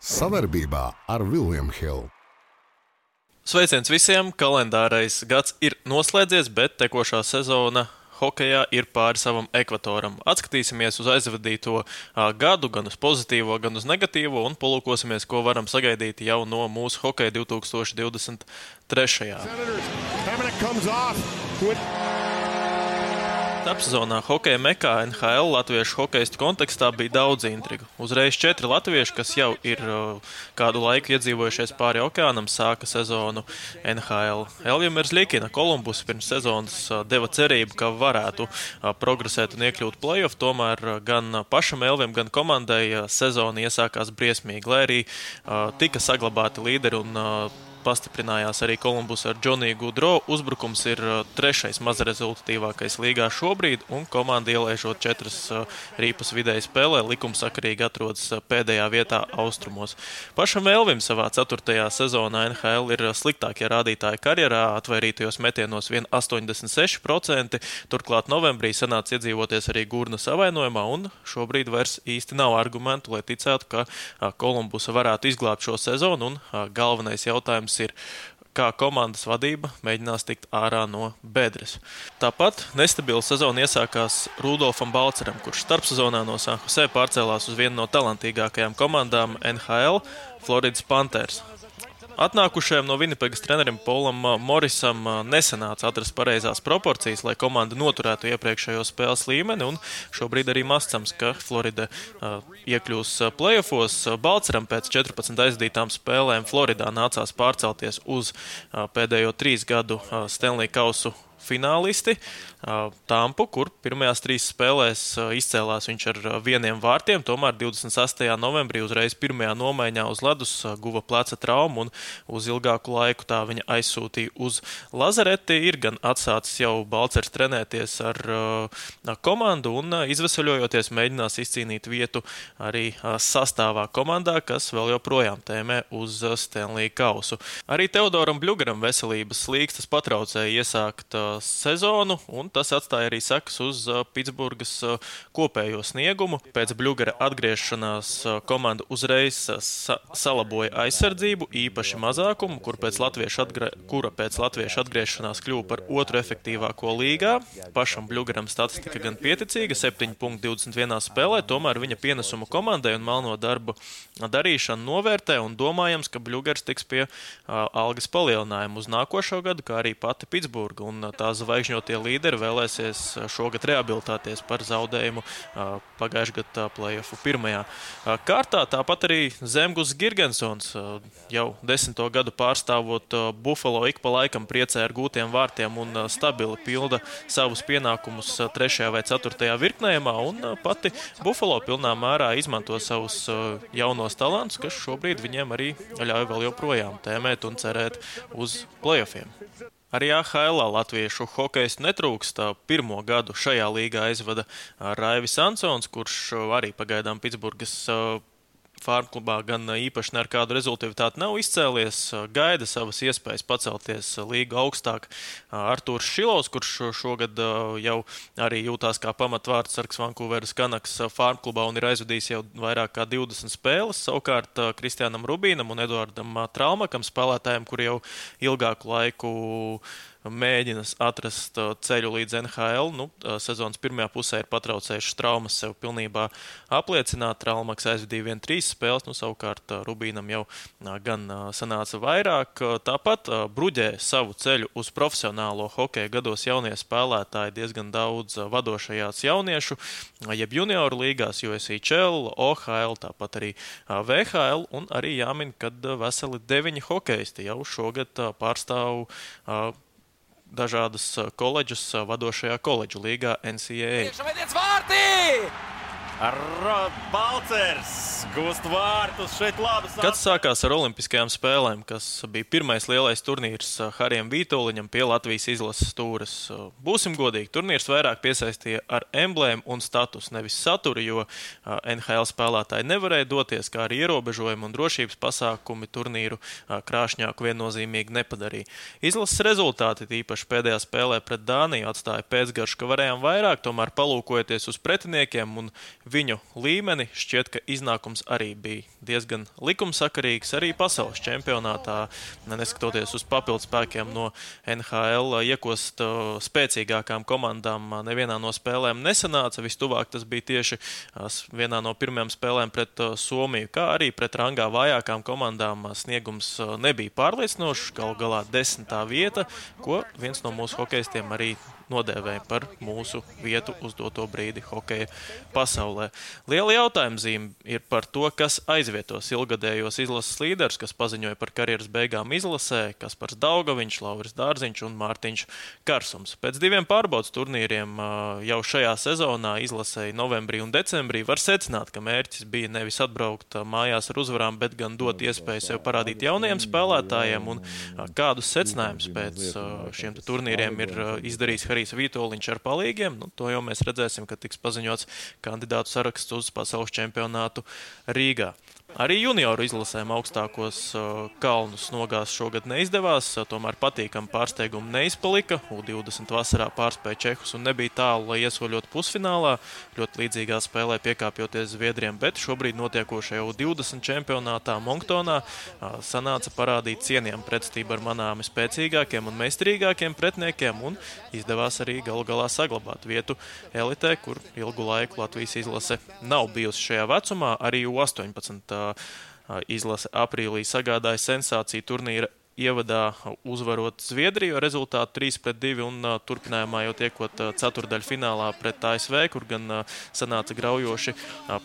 Savarbībā ar William Hill. Sveiciens visiem! Kalendārais gads ir noslēdzies, bet tekošā sezona hokejā ir pāri savam ekvatoram. Atskatīsimies uz aizvadīto gadu, gan uz pozitīvo, gan uz negatīvo, un palūkosimies, ko varam sagaidīt jau no mūsu hokeja 2023. Starpsezonā hokeja mekā NHL latviešu hokeistu kontekstā bija daudz intrigu. Uzreiz 4 latvieši, kas jau ir kādu laiku iedzīvojušies pāri okeānam, sāka sezonu NHL. Elvija Merzlikina Kolumbus pirms sezonas deva cerību, ka varētu progresēt un iekļūt play-off, tomēr gan pašam Elvijam, gan komandai sezona iesākās briesmīgi, lai arī tika saglabāti līderi un pastiprinājās arī Kolumbus ar Džoniju Gudro. Uzbrukums ir trešais mazrezultatīvākais līgā šobrīd, un komanda ielaižot 4 rīpas vidēji spēlē, likumsakarīgi atrodas pēdējā vietā austrumos. Pašam Elvim savā 4. sezonā NHL ir sliktākie rādītāji karjerā, atvairītajos metienos vien 86%, turklāt novembrī sanāca iedzīvoties arī Gurnas avainojumā, un šobrīd vairs īsti nav argumentu, lai ticētu, ka Kolumbusa varētu izglābt šo sezonu, un galvenais jautājums ir, kā komandas vadība mēģinās tikt ārā no bedres. Tāpat nestabila sezona iesākās Rudolfam Balceram, kurš starpsezonā no San Jose pārcēlās uz vienu no talantīgākajām komandām NHL – Floridas Panthers. Atnākušajam no Vinnipegas trenerim Polam Morisam nesanāca atrast pareizās proporcijas, lai komanda noturētu iepriekšējo spēles līmeni, un šobrīd arī mascams, ka Florida iekļūs playoffos. Balceram pēc 14 aizdītām spēlēm Floridā nācās pārcelties uz pēdējo 3 gadu Stanley Kausu finālisti Tampu, kur pirmajās 3 spēlēs izcēlās viņš ar 1 vārtiem, tomēr 28. novembrī uzreiz pirmajā nomaiņā uz ledus guva pleca traumu un uz ilgāku laiku tā viņa aizsūtīja uz lazareti. Ir gan atsācis jau Balcers trenēties ar komandu un izveseļojoties mēģinās izcīnīt vietu arī sastāvā komandā, kas vēl joprojām tēmē uz Stanley Kausu. Arī Teodoram Bļugaram veselības slīkstas patraucēja iesākt sezonu, un tas atstāja arī sekas uz Pitsburgas kopējo sniegumu. Pēc Bļugara atgriešanās komanda uzreiz salaboja aizsardzību, īpaši mazākumu, kura pēc latviešu atgriešanās kļuva par 2. efektīvāko līgā. Pašam Bļugaram statistika gan pieticīga, 7,21 spēlē, tomēr viņa pienesumu komandai un melno darbu darīšanu novērtē, un domājams, ka Bļugars tiks pie algas palielinājuma uz nākošo gadu, kā arī pati Pitsburga, un tā zvaigžņotie līderi vēlēsies šogad rehabilitēties par zaudējumu pagājušā gada play-offu pirmajā kārtā. Tāpat arī Zemgus Girgensons jau 10. gadu pārstāvot Buffalo ik pa laikam priecē ar gūtiem vārtiem un stabili pilda savus pienākumus 3. vai 4. virknējumā, un pati Buffalo pilnā mērā izmanto savus jaunos talantus, kas šobrīd viņiem arī ļauj vēl joprojām tēmēt un cerēt uz play-offiem. Arī AHL latviešu hokeistu netrūkst. 1. gadu šajā līgā aizvada Raivis Ansons, kurš arī pagaidām Pitsburgas Farmklubā gan īpaši ne ar kādu rezultātu nav izcēlies, gaida savas iespējas pacelties līgu augstāk. Artūrs Šilovs, kurš šogad jau arī jūtās kā pamatvārdsargs Vancouveras Canucks Farmklubā un ir aizvadījis jau vairāk kā 20 spēles. Savukārt Kristiānam Rubīnam un Eduardam Traumakam, spēlētājiem, kuri jau ilgāku laiku mēģina atrast ceļu līdz NHL. Sezonas pirmajā pusē ir patraucējušas traumas sev pilnībā apliecināt. Traumaks aizvadīja 3 spēles, savukārt Rubīnam jau gan sanāca vairāk. Tāpat bruģē savu ceļu uz profesionālo hokeju gados jaunie spēlētāji, diezgan daudz vadošajās jauniešu, jeb junioru līgās, USHL, OHL, tāpat arī VHL, un arī jāmin, kad veseli 9 hokeisti jau šogad pārstāv dažādas koledžas vadošajā koledžu līgā NCAA. Balcers gūst vārtus šeit labas. Gads sākās ar Olimpiskajām spēlēm, kas bija pirmais lielais turnīrs Harijam Vītoliņam pie Latvijas izlases stūres. Būsim godīgi, turnīrs vairāk piesaistīja ar emblēmu un status, nevis saturu, jo NHL spēlētāji nevarēja doties, kā arī ierobežojumi un drošības pasākumi turnīru krāšņāku viennozīmīgi nepadarīja. Izlases rezultāti, tīpaši pēdējā spēlē pret Dāniju, atstāja pēcgaršu, ka varējām vairāk, tomēr palūkojoties uz pretiniekiem un viņu līmeni, šķiet, ka iznākums arī bija diezgan likumsakarīgs. Arī pasaules čempionātā, neskatoties uz papildu spēkiem no NHL, iekost spēcīgākām komandām nevienā no spēlēm nesanāca. Vistuvāk tas bija tieši vienā no pirmajām spēlēm pret Somiju, kā arī pret rangā vājākām komandām sniegums nebija pārliecinošs. Galu galā 10. vieta, ko viens no mūsu hokejistiem arī nodēvēja par mūsu vietu uz doto brīdi hokeja pasaulē. Liela jautājuma zīme ir par to, kas aizvietos ilgadējos izlases līderus, kas paziņoja par karjeras beigām izlasē, Kaspars Daugaviņš, Lauris Dārziņš un Mārtiņš Karsums. Pēc 2 pārbaudas turnīriem jau šajā sezonā izlasēji novembrī un decembrī var secināt, ka mērķis bija nevis atbraukt mājās ar uzvarām, bet gan dot iespēju sev parādīt jaunajiem spēlētājiem, un kādus secinājumus pēc šiem turnīriem ir izdarījis Harijs Vītoliņš ar palīgiem. To jau mēs redzēsim, kad tiks paziņots kandidātu saraksts uz pasaules čempionātu Rīgā. Arī junioru izlasēm augstākos kalnus nogāzt šogad neizdevās, tomēr patīkami pārsteigumi neizpalika. U20 vasarā pārspēja čehus un nebija tālu, lai iesoļot pusfinālā. Ļoti līdzīgā spēlē piekāpjoties Zviedriem, bet šobrīd notiekošajā U20 čempionātā Monktonā sanāca parādīt cienījumu pretstību ar manāmi spēcīgākiem un meistarīgākiem pretniekiem un izdevās arī galu galā saglabāt vietu elitē, kur ilgu laiku Latvijas izlase nav bijusi šajā vecumā. Arī U18 izlase aprīlī sagādāja sensāciju turnīra ievadā uzvarot Zviedriju ar rezultātu 3-2 un turpinājumā jau tiekot ceturdaļu finālā pret ASV, kur gan sanāca graujoši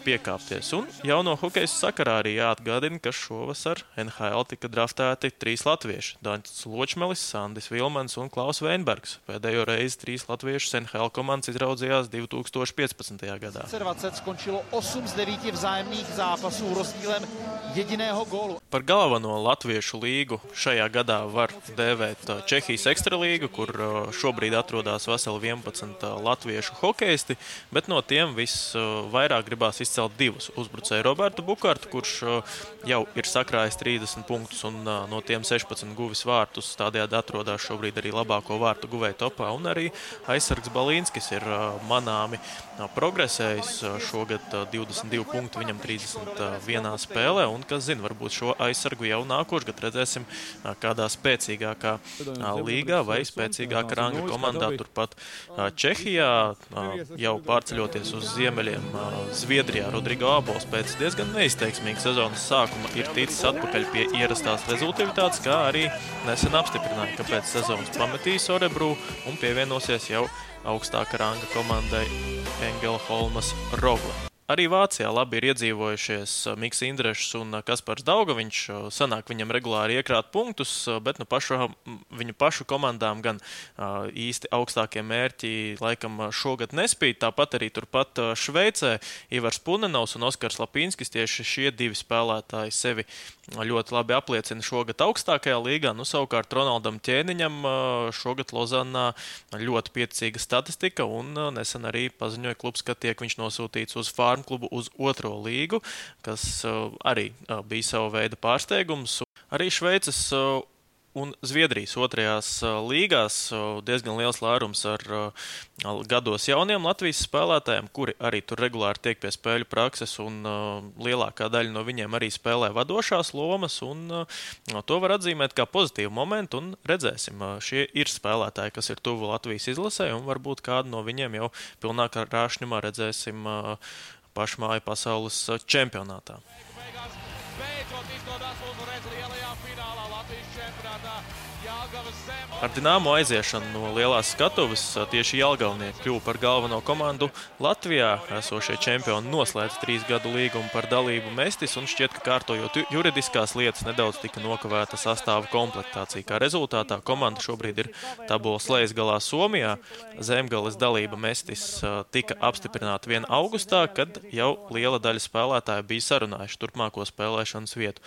piekāpties. Un jauno hokejas sakarā arī jāatgādina, ka šovasar NHL tika draftēti 3 latvieši – Daņs Ločmelis, Sandis Vilmans un Klaus Veinbergs. Pēdējo reizi 3 latviešus NHL komandas izraudzījās 2015. gadā. 20 skončilo 8 z 9 vzájemných zápasů rozdílem jediného gólu. Par galveno latviešu līgu šajā gadā var dēvēt Čehijas ekstralīgu, kur šobrīd atrodas veseli 11 latviešu hokeisti, bet no tiem visvairāk gribās izcelt 2 uzbrucēju Robertu Bukartu, kurš jau ir sakrājis 30 punktus un no tiem 16 guvis vārtus, tādējādi atrodas šobrīd arī labāko vārtu guvēju topā, un arī aizsargs Balīnskis ir manāmi progresējis šogad 22 punktu, viņam 31 spēlē, un kas zina, varbūt šo aizsargu jau nākošgad redzēsim kādā spēcīgākā līgā vai spēcīgākā ranga komandā turpat Čehijā, jau pārceļoties uz ziemeļiem Zviedrijā. Rodrigo Abols pēc diezgan neizteiksmīga sezonas sākuma ir ticis atpakaļ pie ierastās rezultātātes, kā arī nesen apstiprināja, ka pēc sezonas pametīs Örebro un pievienosies jau augstāka ranga komandai Engelholmas Rogle. Arī Vācijā labi ir iedzīvojušies Miks Indrešs un Kaspars Daugaviņš. Sanāk viņam regulāri iekrāt punktus, bet viņu pašu komandām gan īsti augstākie mērķi laikam šogad nespīd. Tāpat arī turpat Šveicē Ivars Punenovs un Oskars Lapīnskis, tieši šie 2 spēlētāji sevi ļoti labi apliecina šogad augstākajā līgā. Savukārt Ronaldam Ķēniņam šogad Lozanā ļoti pieticīga statistika un nesen arī paziņoja klubs, ka tiek viņš nosūtīts uz Farmklubu uz 2. līgu, kas arī bija sava veida pārsteigums. Arī Šveices un Zviedrijas 2. līgās diezgan liels lērums ar gados jauniem Latvijas spēlētājiem, kuri arī tur regulāri tiek pie spēļu prakses, un lielākā daļa no viņiem arī spēlē vadošās lomas, un to var atzīmēt kā pozitīvu momentu, un redzēsim, šie ir spēlētāji, kas ir tuvu Latvijas izlasē, un varbūt kādu no viņiem jau pilnākā rāšņumā redzēsim pašmāju pasaules čempionātā. Ar Dinamo aiziešanu no lielās skatuves tieši Jelgavnieki kļuva par galveno komandu Latvijā. Esošie čempioni noslēdz 3 gadu līgumu par dalību Mestis, un šķiet, ka kārtojot juridiskās lietas nedaudz tika nokavēta sastāva komplektācija. Kā rezultātā komanda šobrīd ir tabulas lejasgalā Somijā. Zemgales dalība Mestis tika apstiprināta 1. augustā, kad jau liela daļa spēlētāju bija sarunājuši turpmāko spēlēšanas vietu.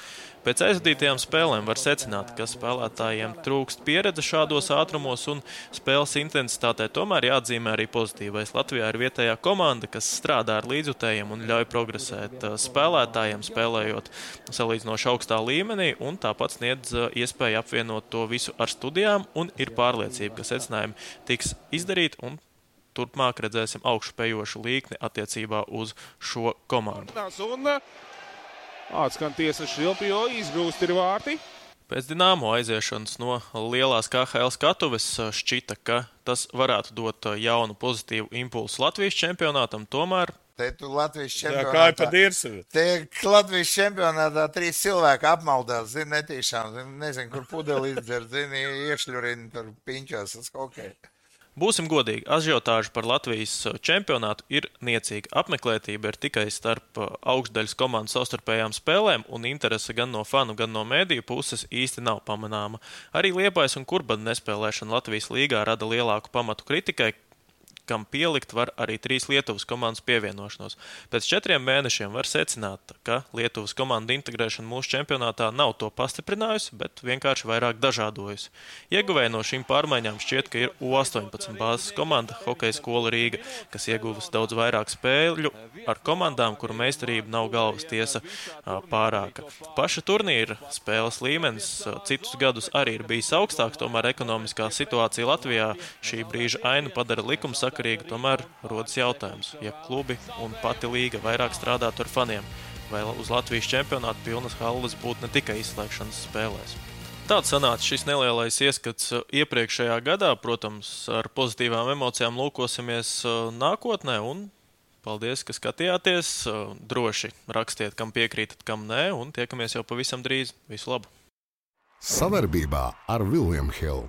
Pēc aizvadītajām spēlēm var secināt, ka spēlētājiem trūkst pieredze šādos ātrumos un spēles intensitātē, tomēr jāatzīmē arī pozitīvais. Latvijā ir vietējā komanda, kas strādā ar līdzjutējiem un ļauj progresēt spēlētājiem, spēlējot salīdzinoši augstā līmenī, un tāpat sniedz iespēju apvienot to visu ar studijām, un ir pārliecība, ka secinājumi tiks izdarīti un turpmāk redzēsim augšupejošu līkni attiecībā uz šo komandu. Un atskan tiesa Šilpjo, izgrūst ir vārti. Pēc Dinamo aiziešanas no lielās KHL skatuves šķita, ka tas varētu dot jaunu pozitīvu impulsu Latvijas čempionātam, tomēr Te tu Latvijas Kā čempionātā. pa dirsavi. Te Latvijas čempionātā 3 cilvēki apmaldās, zini, netīšām. Nezinu, kur pudeli izdzer, zini, iešļurina tur piņķos uz hokeju. būsim godīgi, ažiotāža par Latvijas čempionātu ir niecīga. Apmeklētība ir tikai starp augšdaļas komandu savstarpējām spēlēm, un interese gan no fanu, gan no mēdīju puses īsti nav pamanāma. Arī Liepājas un Kurbada nespēlēšana Latvijas līgā rada lielāku pamatu kritikai, kam pielikt var arī 3 Lietuvas komandas pievienošanos. Pēc 4 mēnešiem var secināt, ka Lietuvas komanda integrēšana mūsu čempionātā nav to pastiprinājusi, bet vienkārši vairāk dažādojusi. Ieguvēja no šīm pārmaiņām šķiet, ka ir U18 bāzes komanda Hokeja skola Rīga, kas ieguvusi daudz vairāk spēļu ar komandām, kuru meistarība nav galvas tiesa pārāka. Paša turnīra spēles līmenis citus gadus arī ir bijis augstāks, tomēr ekonomiskā situācija Latvijā šī brīža ainu padara likumsakarīgu. Tomēr rodas jautājums, ja klubi un pati līga vairāk strādātu ar faniem, vai uz Latvijas čempionātu pilnas halles būtu ne tikai izslēgšanas spēlēs. Tāds sanāca šis nelielais ieskats iepriekšējā gadā. Protams, ar pozitīvām emocijām lūkosimies nākotnē un paldies, ka skatījāties. Droši rakstiet, kam piekrītat, kam nē, un tiekamies jau pavisam drīz. Visu labu! Savarbībā ar William Hill.